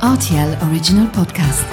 Rtl Original Podcast.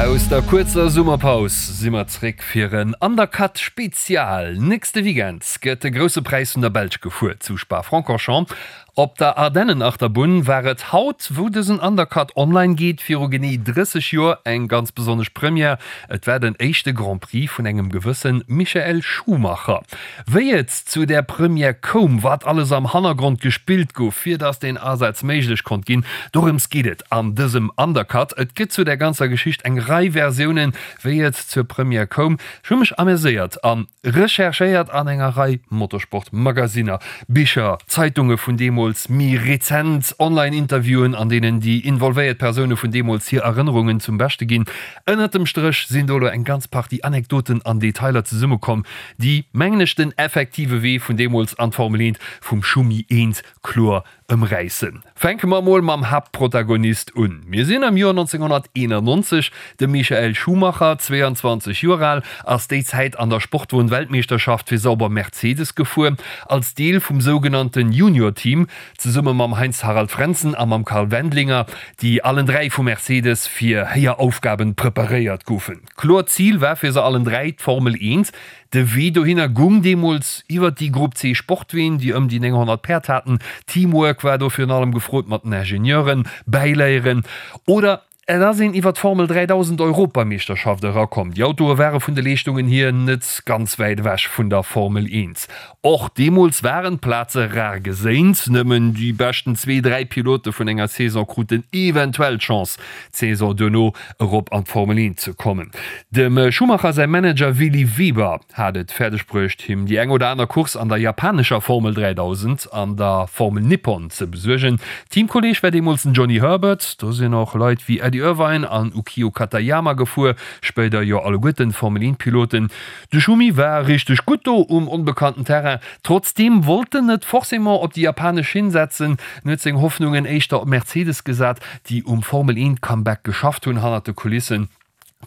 Aus der kuerzer Summerpaus si mer zréck fir en Undercut Spezial. Nächste Weekend gëtt de Grousse Präis vun der Belsch gefuer zu Spa-Francorchamps. Op der Ardennenachterbunn war et haut, wou dësen Undercut online geet, viru genee 30 Joer eng ganz besonnesch Première. Et war den éischte Grand Prix vun engem gewësse Michael Schumacher. Wéi et zu där Première koum, wat alles am Hannergrond gespillt gouf, fir datt deen Asaz méiglech konnt ginn, dorëms geet et an dësem Undercut. Et gëtt zu där ganzer Geschicht eng Rei Versiounen, wéi et zur Première koum. Ech hu mech ameséiert an Recherchéiert an enger Rei Motorsport-Magasinner, Bicher, Zeitunge vun deemools, méi rezent Online-Interviewen, an deenen déi involvéiert Persoune vun deemools hir Erënnerungen zum Beschte ginn. Ënnert dem Stréch sinn do elo eng ganz Partie Anekdoten an Detailer zesummekomm, déi, mengen ech, den effektive Wee vun deemools an d'Formel 1 vum Schumi 1 kloer Ëmräissen. Fänke mer emol mam Haaptprotagonist un. Mir sinn am Joer 1991. De Michael Schumacher, 22 Joer al, ass déi Zäit an der Sportwon-Weltmeeschterschaft fir Sauber Mercedes gefuer, als Deel vum sougenannten Junior-Team, zesumme mam Heinz-Harald Frentzen a mam Karl Wendlinger, déi allen 3 vu Mercedes fir héijer Aufgaben preparéiert goufen. Kloert Zil war fir se allen 3 d'Formel 1. De Wee dohinner gung deemools iwwert déi Grupp C Sportween, déi ëm déi 900 Päerd haten. Teamwork war do virun allem gefrot mat den Ingenieuren, bäiléieren oder et ass een iwwer d'Formel 3000 Europameeschterschaft erakomm. Déi Autoe ware vun de Leeschtungen hier net ganz wäit ewech vun der Formel 1. Och deemools waren d'Plaze rar geséint, nëmmen déi beschten zwee, dräi Pilote vun enger Saison kruten eventuell d'Chance, d'Saison duerno erop an d'Formel 1 ze kommen. Dem Schumacher säi Manager Willi Weber hat et fäerdeg bruecht, him déi eng oder aner Course an der japanescher Formel 3000 an der Formel Nippon ze besuergen. Teamkolleeg war deemools den Johnny Herbert. Do sinn och Leit wéi Eddie Irvine an Ukio Katayama gefuer, spéider jo alleguerten Formel 1 Piloten. De Schumi war richteg gutt do um onbekannten Terrain. Trotzdeem wollt en net forcément op déi japanesch Schinn setzen. En huet seng Hoffnungen éischter op Mercedes gesat, déi um Formel 1 Comeback geschafft hunn hannert de Kulissen.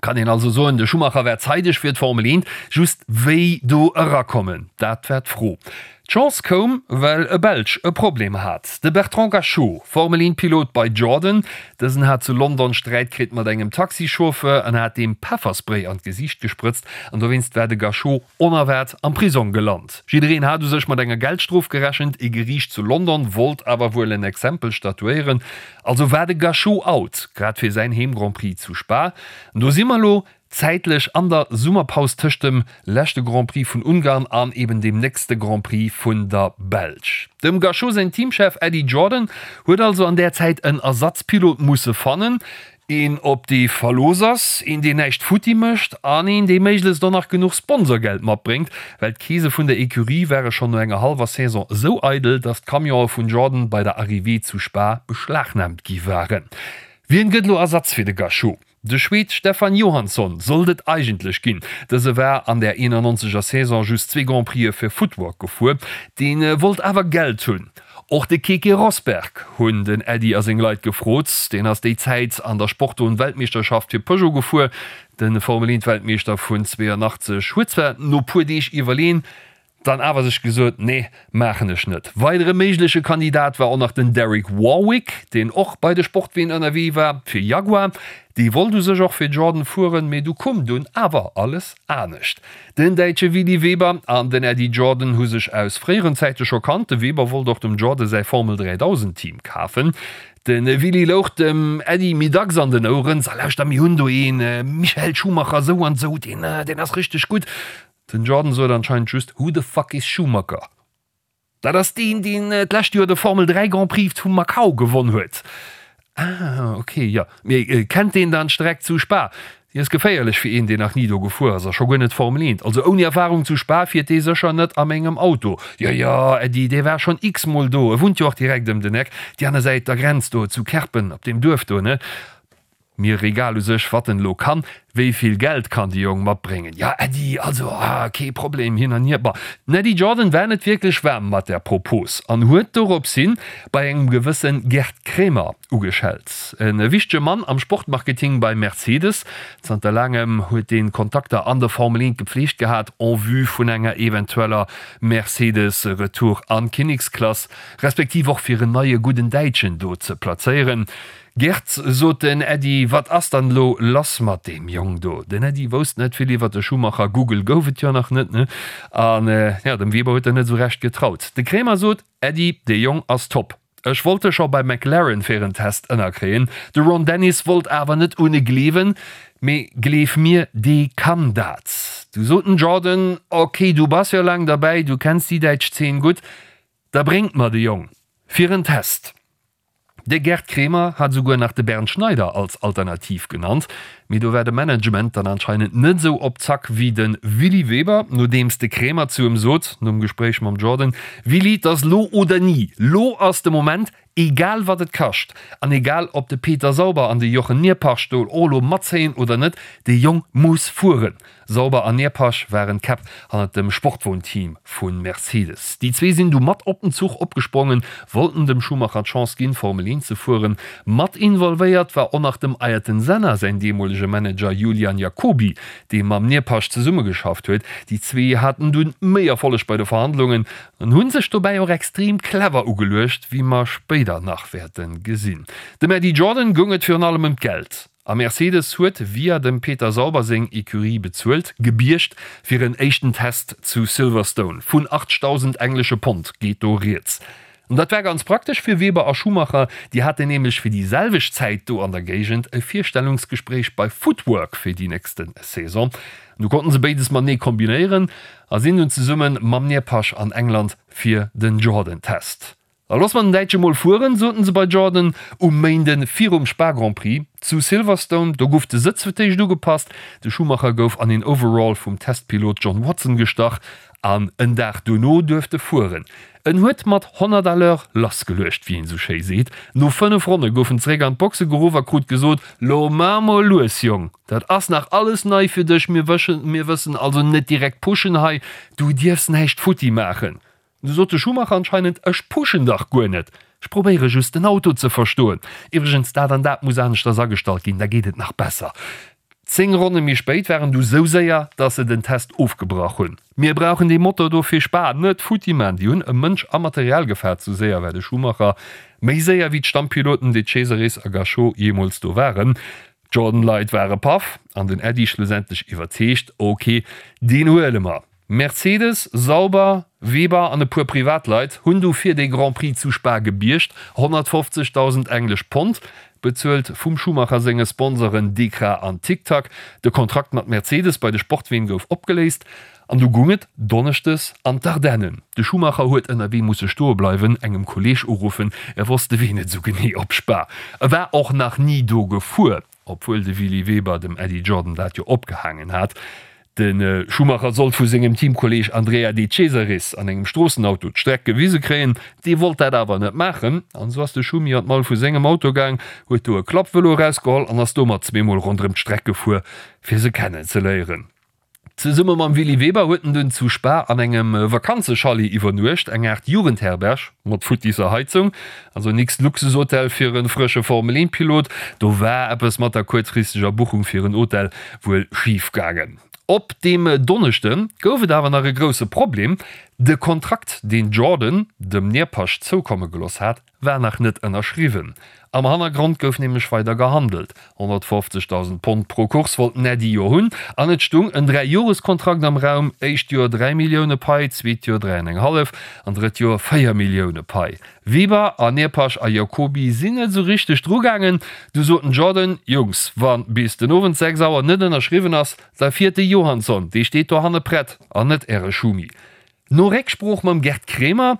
Kann een also soen, de Schumacher war zeideg fir d'Formel 1. Just wéi do erakommen, dat war d'Fro. D'Chance koum, well e Belsch e Problem hat, de Bertrand Gachot, Formel 1 Pilot bei Jordan. Dësen hat zu London Sträit kritt mat engem Taxichauffeur an hat deem Pefferspray an d'Gesiicht gesprëtzt an dowéinst war de Gachot onerwaart am Prisong gelant. Jiddereen hat u sech mat enger Geldstrof gerechent, e Geriicht zu London wollt awer wuel en Exempel statuéieren, also war de Gachot out, grad fir säin Heem-Grand Prix zu Spa. An do si mer elo, Zäitlech an der Summerpaus tëscht dem leschte Grand Prix vun Ungarn an eben dem nächste Grand Prix vun der Belsch. Dem Gachot säin Teamchef Eddie Jordan huet also an där Zäit en Ersatzpilot musse fannen, een op dee Verlooss ass, een deen näischt futti mécht an een dee méiglechst och nach genuch Sponsorgeld matbréngt, well d'Keese vun der Ecurie ware schonn no enger hallwer Saison esou eidel, datt d'Camionë vun Jordan bei der Arrivée zu Spa beschlagnaamt gi waren. Wien gëtt elo Ersatz fir de Gachot? De Schweed Stefan Johansson sollt et eigentlech ginn. Dëse war an der 91 er Saison just zwee Grand Prixë fir Footwork gefuer. Dee wollt awer Geld hunn. Och de Keke Rosberg hunn den Eddie a seng Leit gefrot. Deen ass déi Zäit an der Sportwon-Weltmeeschterschaft fir Peugeot gefuer. De Formel 1 Weltmeeschter vun 82 huet zwar no puer Deeg iwwerleen, Dann awer sech gesot, nee, maachen ech net. Weidere méigleche Kandidat war och nach den Derek Warwick, deen och bei de Sportween ënnerwee war fir Jaguar. Dee wollt u sech och fir Jordan fueren, mee du koum dunn awer alles anescht. Den Däitsche Willi Weber an den Eddie Jordan hu sech aus fréieren Zäite scho kannt. De Weber wollt och dem Jordan säi Formel 3000 Team kafen. De Willi louch dem Eddie méi dacks an den Oueren, So lauschter, mir hunn do ee Michael Schumacher, sou an sou, deen ass richteg gutt. Den Jordan sot anscheinend just Who the fuck is Schumacher? Dat ass deen, deen d'lescht Joer de Formel 3 Grand Prix vu Macau gewonn huet. Ah, ok, jo. Mee kennt deen dann d'Streck zu Spa? Déi ass geféierlech fir een, deen nach ni do gefuer ass a scho guer net Formel 1. Also ouni Erfarung zu Spa fiert dee sécher net a mengem Auto. Jo, jo, Äddi, dee war schonn x-mol do. E wunnt jo och direkt ëm den Eck, déi aner Säit der Grenz do, zu Kerpen, op deem Duerf do, ne? Mir egal u sech, wat en elo kann. Wéi vill Geld kann de Jong matbréngen? Ja, Äddi, also, ah, kee Problem, hin an hier. Bon, den Äddi Jordan war net wierklech waarm mat där Propos an huet dorops hin bei engem gewësse Gerd Kremer ugeschellt. E wichtege Mann am Sportmarketing bei Mercedes. Zanter laangem huet dee Kontakter an der Formel 1 gepflegt gehat en vue vun enger eventueller Mercedes-Retour an d'Kinneksklass, respektiv och fir en neie gudden Däitschen do ze plazéieren. Gerd, sot den Äddi, wat ass dann elo lass mat deem Jong do? Den Äddi wousst net vill iwwer de Schumacher, Google gouf et jo nach net, ne? An jo, dem Weber huet en net esou recht getraut. De Kremer sot, Äddi, dee Jong ass top. Ech wollt e scho bei McLaren fir en Test ënnerkréien. De Ron Dennis wollt awer net un e gleewen, mee gleef mir, dee kann dat. Du sot den Jordan, Ok, du bass jo laang derbäi, du kenns déi däitsch Zeen gutt, da bréngt mer de Jong fir en Test. De Gerd Kremer hat esouguer nach de Bernd Schneider als Alternativ genannt, mee do war de Management dann anscheinend net esou op Zack wéi de Willy Weber, nodeems de Kremer zu em sot, nom Gespréich mam Jordan, Willy, 't ass lo oder ni, lo ass de Moment, egal wat et kascht an egal ob de Peter Sauber an de Jochen Neerpasch do och lo matzéien oder net, dee Jong muss fueren. Sauber an Neerpasch waren d'Käpp hannert dem Sportwon-Team vu Mercedes. Déi zwee sinn du mat op den Zuch opgesprongen, wollten dem Schumacher d'Chance ginn, Formel 1 ze fueren. Mat involvéiert war och nach dem Ayrton Senna säin deemolege Manager Julian Jacobi, dee mam Neerpasch zesummegeschafft huet. Déi zwee haten dunn méi Erfolleg bei de Verhandlungen an hu sech dobäi och extrem clever ugeluecht, wéi mer spéider nach wäerte gesinn. Dem Eddie Jordan goung et virun allem ëm d'Geld. A Mercedes huet via dem Peter Sauber seng Ecurie bezuelt, gebiergt fir en éischten Test zu Silverstone. Vun 80.000 englesche Pond geet do rieds. An dat war ganz praktesch fir Webber a Schumacher, déi haten nämlech fir déi selwecht Zäit do an der Géigend e Virstellungsgespréich bei Footwork fir déi nächste Saison. Du konnten se béides matenee kombinéieren a sinn dunn zesumme mam Neerpasch an England fir den Jordan-Test. Da looss mer den Däitsche mol fueren, soten se bei Jordan um Méinde virum Spa Grand Prix zu Silverstone. Do guff de Sëtz fir d'éischt ugepasst, de Schumacher gouf an een Overall vum Testpilot John Watson gestach an en Dag dono duerft e fueren. En huet mat 100 à l'heure lassgeluecht, wéi een esou schéi seet. No 5 Ronne gouf en zeréck an d'Boxe geruff a krut gesot, Lo mar mol lues, Jong, dat ass nach alles nei fir dech, mir wëssen also net direkt pushen hei, du dierfs näischt futti maachen. Du sot de Schumacher anscheinend, Ech pushen dach guer net, ech probéiere just den Auto ze verstoen. Iwwregens, dat an dat muss aneschters agestallt ginn, da geet et nach besser. 10 Ronne méi spéit war en du sou séier, dass se den Test ofgebrach hunn. Mir brauchen dee Motor do fir Spa, net futti man. Déi hunn ëm Mënsch a Material gefaart, sou séier war de Schumacher, méi séier wéi d'Stammpiloten De Cesaris a Gachot jeemools do waren. D'Jordan-Leit ware paff an den Äddi schlussendlech iwwerzeegt, Ok, deen huele mer. Mercedes, Sauber, Weber an e puer Privatleit hunn du fir dee Grand Prix zu Spa gebiergt, 150.000 englesch Pond, bezuelt vum Schumacher senge Sponsoren Dekra an Tic Tac. De Kontrakt mat Mercedes bei de Sportween gouf opgeléist an du gung et donneschdes an d'Ardennen. De Schumacher huet ënnerwee musse stoe bleiwen, engem Kolleeg uruffen, e wosst de Wee net esou genee op Spa. E war och nach ni do gefuer. Obwuel de Willy Weber dem Eddie Jordan dat jo opgehaangen hat. De Schumacher sollt vu sengem Teamkolleeg Andrea De Cesaris an engem Stroossenauto d'Streck gewise kréien. Dee wollt dat awer net maachen an esou ass de Schumi an d'Mall vu sengem Auto gaang, huet do e Klappvëlo erausgeholl an ass domat zweemol ronderëm d'Streck gefuer, fir se kennenzeléieren. Zesumme mam Willy Weber huet en dunn zu Spa an engem Vakanzechalet iwwernuecht, eng Aart Jugendherberg mat futtisser Heizung, also nix Luxushotel fir e frësche Formel 1 Pilot. Do war eppes mat der kuerzfristeger Buchung fir en Hotel wuel schif gaangen. Op deem Donneschde gouf et awer nach e grousse Problem, De Kontrakt, deen Jordan dem Neerpasch zoukomme geloss hat, war nach net ënnerschriwwen. Am Hannergrond gouf nämlech weider gehandelt. 150.000 Pond pro Course wollt den Eddie jo hunn an et stung en Dräijoreskontrakt am Raum, éischt Joer 3 Millioune Pai, zweet Joer 3 an eng hallef an drëtt Joer 4 Millioune Pai. Weber, Aneerpasch a Jacoby sinn net esou richteg drugaangen. Du sot den Jordan, Jungs, wa bis den Owend 6 Auer net ënnerschriwwen ass, da fiert de Johansson, dee steet dohanne prett an net äre Schumi. No Récksprooch mam Gerd Kremer.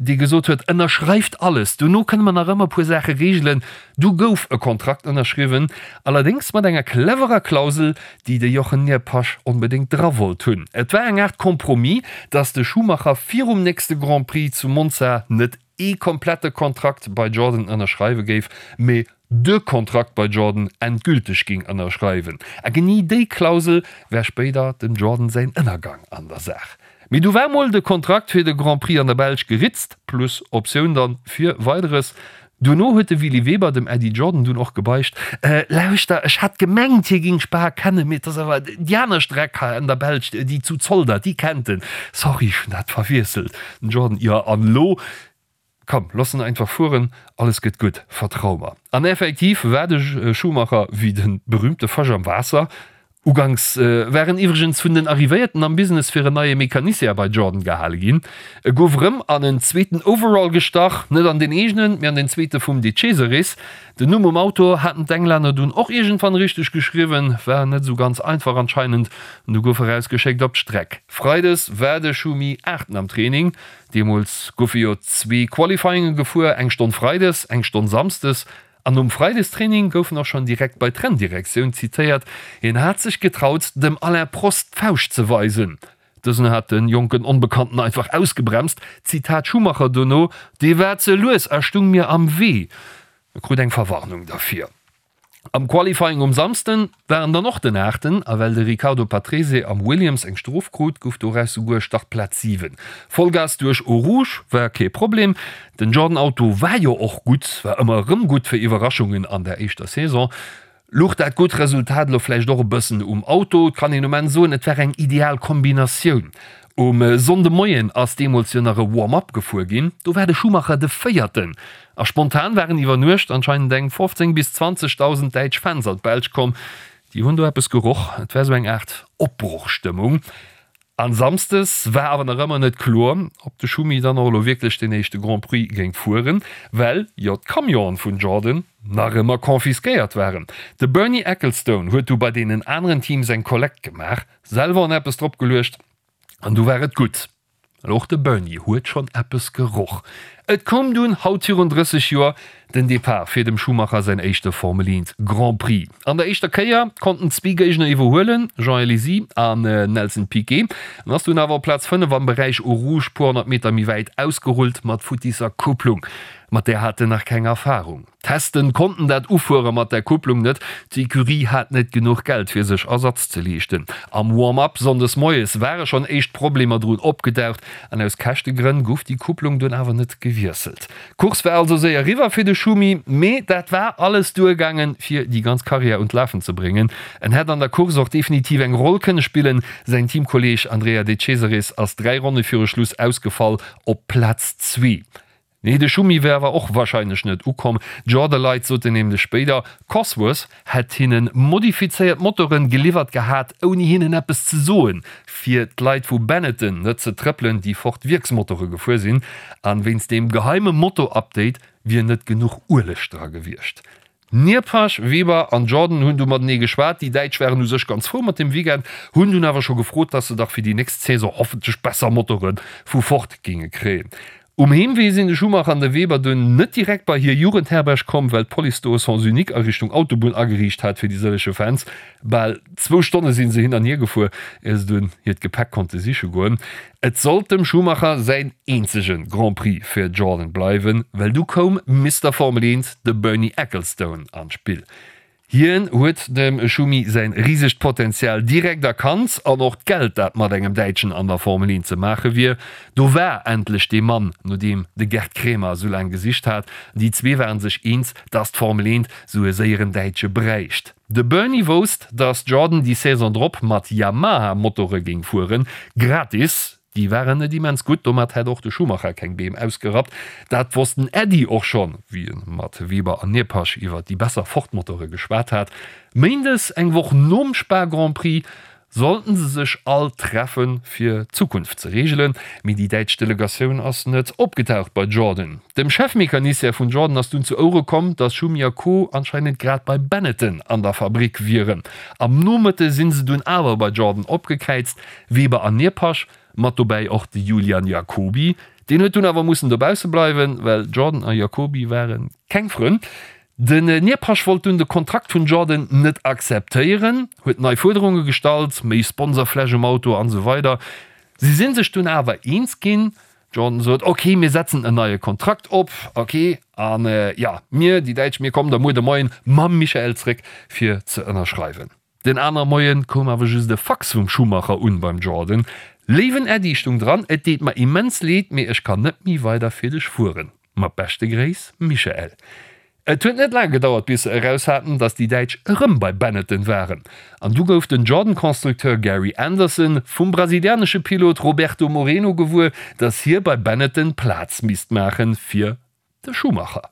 dee gesot huet, Ënnerschreift alles, dono kënne mer nach ëmmer e puer Saache reegelen. Du gouf e Kontrakt ënnerschriwwen, allerdéngs mat enger cleverer Klausel, déi de Jochen Neerpasch onbedéngt dra wollt hunn. Et war eng Aart Compromis, datt de Schumacher virum nächste Grand Prix zu Monza net ee komplette Kontrakt bei Jordan ënnerschreiwe géif, mee de Kontrakt bei Jordan endgülteg géing ënnerschreiwen. A genee déi Klausel war spéider dem Jordan säin Ënnergang an der Saach. Mee du war mol de Kontrakt fir de Grand Prix an der Belsch geritzt, plus Optioun dann fir Weideres. Duerno huet de Willy Weber dem Eddie Jordan dunn och gebeicht, Lauschter, ech hat gemengt hie géing Spa kennen, mee et ass awer déi aner Streck hei an der Belsch, déi zu Zolder, déi kennt en. Sorry, ech hunn dat verwiesselt. Den Jordan, Jo, an elo? Komm, looss en einfach fueren, alles gëtt gutt, vertrau mer. An effektiv war de Schumacher wéi de berühmte Fësch am Waasser. Uganks war en iwwregens vun den Arrivéierten am Business fir en neie Mecanicien bei Jordan gehale ginn. E gouf erëm an en zweeten Overall gestach, net an den eegenen, mee an den zweete vum De Cesaris. Den Numm um Auto haten d'Englänner dunn och iergendwann richteg geschriwwen, war net esou ganz einfach anscheinend, an du gouf e rausgeschéckt op d'Streck. Freides war de Schumi Aachten am Training. Deemools goufe jo zwee Qualifyinge gefuer, eng Stonn Freides, eng Stonn Samsdes. An nom Freidestraining gouf en och schonn direkt bei d'Renndirektioun zitéiert, hien hat sech getraut, dem Alain Prost d'Fauscht ze weisen. Dësen hat de jonken Onbekannten einfach ausgebremst. Zitat Schumacher dono, Dee war ze lues a stung mir am Wee. E krut eng Verwarnung derfir. Am Qualifying um Samsden war en dann och den Aachten a well de Riccardo Patrese am Williams eng Strof krut, gouf doraus souguer Startplaz 7. Vollgas duerch Eau Rouge war kee Problem. Den Jordan Auto war jo och gutt, war ëmmer erëm gutt fir Iwwerraschungen an der éischter Saison. Luch dat gutt Resultat elo vläicht och e bëssen um Auto? Et kann een um Enn soen, et war eng ideal Kombinatioun. Um Sonndemoien ass deemools jo nach e Warm-up gefuer ginn, do war de Schumacher de Véierten. A spontan waren iwwer Nuecht anscheinend eng 15 bis 20.000 däitsch Fans an d'Belsch komm. Déi hunn do eppes geroch, et war sou eng Aart Opbrochstëmmung. An Samsdes war awer nach ëmmer net kloer, ob de Schumi dann och elo wierklech den éischte Grand Prix géing fueren, well jo d'Camionen vun Jordan nach ëmmer confisquéiert waren. De Bernie Ecclestone huet du bei deenen aneren Teams eng Kollekt gemaach, selwer en eppes drop geluecht an du war et gutt. Well och de Bernie huet schonn eppes geroch. Et koum dunn, haut virun 30 Joer, den Depart fir dem Schumacher säin éischte Formel 1 Grand Prix. An der éischter Kéier konnten zwee Géigner iwwerhuelen, Jean Alesi an Nelson Piquet. En ass dunn awer op Plaz 5 am Beräich Eau Rouge puer 100 Meter méi wäit ausgerullt mat futtisser Kupplung. Mat där hat en nach keng Erfarung. Testen konnten dat Ufuere mat der Kupplung net, d'Ecurie hat net genuch Geld fir sech Ersatz ze leeschten. Am Warm-up Sonndes moies ware schonn éischt Problemer drun opgedaucht an aus Käschtegrënn gouf déi Kupplung dunn awer net gewiesselt. D'Course war also séier eriwwer fir de Schumi, mee dat war alles duergaangen fir déi ganz Karriär un d'Lafen ze bréngen. En hätt an der Course och definitiv eng Roll kënne spillen, säin Teamkolleeg Andrea De Cesaris ass 3 Ronne viru Schluss ausgefall op Plaz zwee. Nee, de Schumi wär awer och wahrscheinlech net ukomm. D'Jorda-Leit soten nämlech spéider, Cosworth hätt hinnen modifizéiert Motoren geliwwert gehat, ouni hinnen eppes ze soen, fir d'Leit vu Benetton net ze trëppelen, déi Ford Wierksmotore gefuer sinn, an wéinst deem geheime Motor-Update wier net genuch Ueleg dra gewiescht. Nierpasch, Weber an Jordan hunn du matenee geschwat. Déi Däitsch waren u sech ganz frou mat dem Weekend, hunn dunn awer scho gefrot, dass se dach fir déi nächst Saison hoffentlech besser Motore vu Ford géinge kréien. Um Heemwee sinn de Schumacher an de Weber dunn net direkt bei hir Jugendherberg komm, well d'Police do e Sens unique a Richtung Autobunn ageriicht hat fir déi sëllege Fans. Bal zwou Stonne si se hin an hier gefuer, ier se dunn hiert Gepäck konnte siche goen. Et sollt dem Schumacher säin eenzege Grand Prix fir Jordan bleiwen, well du koum Mister Formel 1, de Bernie Ecclestone, an d'Spill. Hien huet dem Schumi säin risegt Potenzial direkt erkannt an och d'Geld, dat mat engem Däitschen an der Formel 1 ze maache wier. Do war endlech dee Mann, no deem de Gerd Kremer esou laang gesicht hat. Déi zwee waren sech eens, dass d'Formel 1 esou e séieren Däitsche bräicht. De Bernie wousst, dass Jordan déi Saison drop mat Yamaha-Motore géing fueren, gratis. Déi waren net immens gutt, domat hätt och de Schumacher keng Beem ausgerappt. Dat wosst den Eddie och schonn, wéi e mat Weber an Neerpasch iwwer déi besser Ford-Motore geschwat hat. Méindes, eng Woch nom Spa Grand Prix, sollten se sech all treffen, fir d'Zukunft ze reegelen, mee déi däitsch Delegatioun ass net opgetaucht bei Jordan. Dem Chefmecanicien vun Jordan ass dunn zu Ouere komm, dass Schumi a Co. Anscheinend grad bei Benetton an der Fabrick wieren. Am Nomëtte sinn se dunn awer bei Jordan opgekräizt, Weber an Neerpasch, mat dobäi och de Julian Jacobi. Deen huet dunn awer mussen dobausse bleiwen, well Jordan a Jacobi ware keng Frënn. Den Neerpasch wollt dunn de Kontrakt vun Jordan net akzeptéieren, huet nei Fuerderunge gestallt, méi Sponsorfläch um Auto an esou weider. Si sinn sech dunn awer eens ginn. Jordan sot, Ok, mir setzen en neie Kontrakt op, ok, an jo, mir, déi Däitsch, mir kommen da muer de Moien mam Michael zréck fir ze ënnerschreiwen. Den aner Moien koum awer just e Fax vum Schumacher un beim Jordan, Léiwen Äddi, stung dran, et deet mer immens leed, mee ech kann net méi weider fir dech fueren. Mat beschte Gréiss, Michael. Et huet net laang gedauert bis se eraus haten, dass déi Däitsch erëm bei Benetton waren. An du gouf den Jordan-Constructeur Gary Anderson vum brasilianesche Pilot Roberto Moreno gewuer, dass hie bei Benetton Plaz misst maachen fir de Schumacher.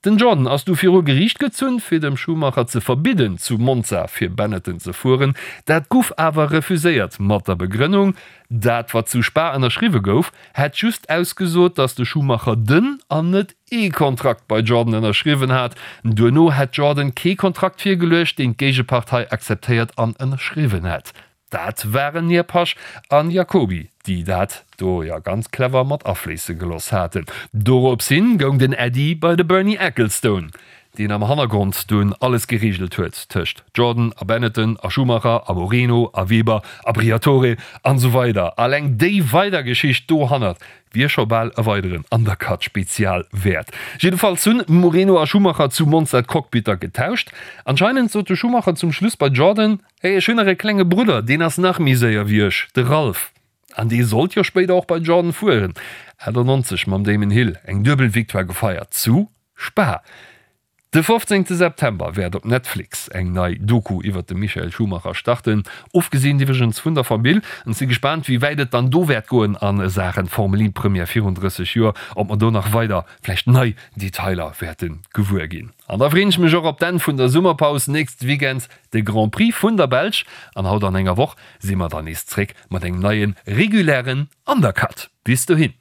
Den Jordan ass du viru Geriicht gezunn, fir dem Schumacher ze verbidden, zu Monza fir Benetton ze fueren. Dat guff awer refuséiert, mat der Begrënnung, dat wat zu Spa ënnerschriwwe gouf, hätt just ausgesot, datt de Schumacher den an net ee Kontrakt bei Jordan ënnerschriwwen hat. Duerno hätt Jordan kee Kontrakt virgeluecht, deen d'Géigepartei akzeptéiert an ënnerschriwwen hätt. Dat waren Nierpasch an Jacoby, déi dat do jo ganz clever mat afléisse geloss haten. Dorops hin goung den Äddi bei de Bernie Ecclestone, deen am Hannergrond dunn alles gereegelt huet tëscht Jordan a Benetton a Schumacher a Moreno a Weber a Briatore an esou weider. Alleng déi weider Geschicht dohannert wier scho bal e weideren Undercut-Spezial wäert. Jiddefalls hunn Moreno a Schumacher zu Monza d'Cockpitter getauscht. Anscheinend sot de Schumacher zum Schluss bei Jordan, Hey, ech hunn nach e klenge Brudder, deen ass nach méi séier wéi ech, de Ralf. An dee sollt jo spéider och bei Jordan fueren. 98 mam Damon Hill eng duebel Victoire gefeiert zu Spa. De 15 September wäert op Netflix eng nei Doku iwwert de Michael Schumacher starten, ofgesinn iwwregens vun der Famill. Ech si gespaant wéi wäit et dann do wäert goen a Saachen Formel 1 Première virun 30 Joer, ob mer do nach weider vläicht nei Detailer wäerte gewuer ginn. An da freen ech mech och op d'Enn vun der Summerpaus nächst Weekend, de Grand Prix vun der Belsch. An haut an enger Woch si mer dann nees zréck mat engem neie regulären Undercut. Bis dohin!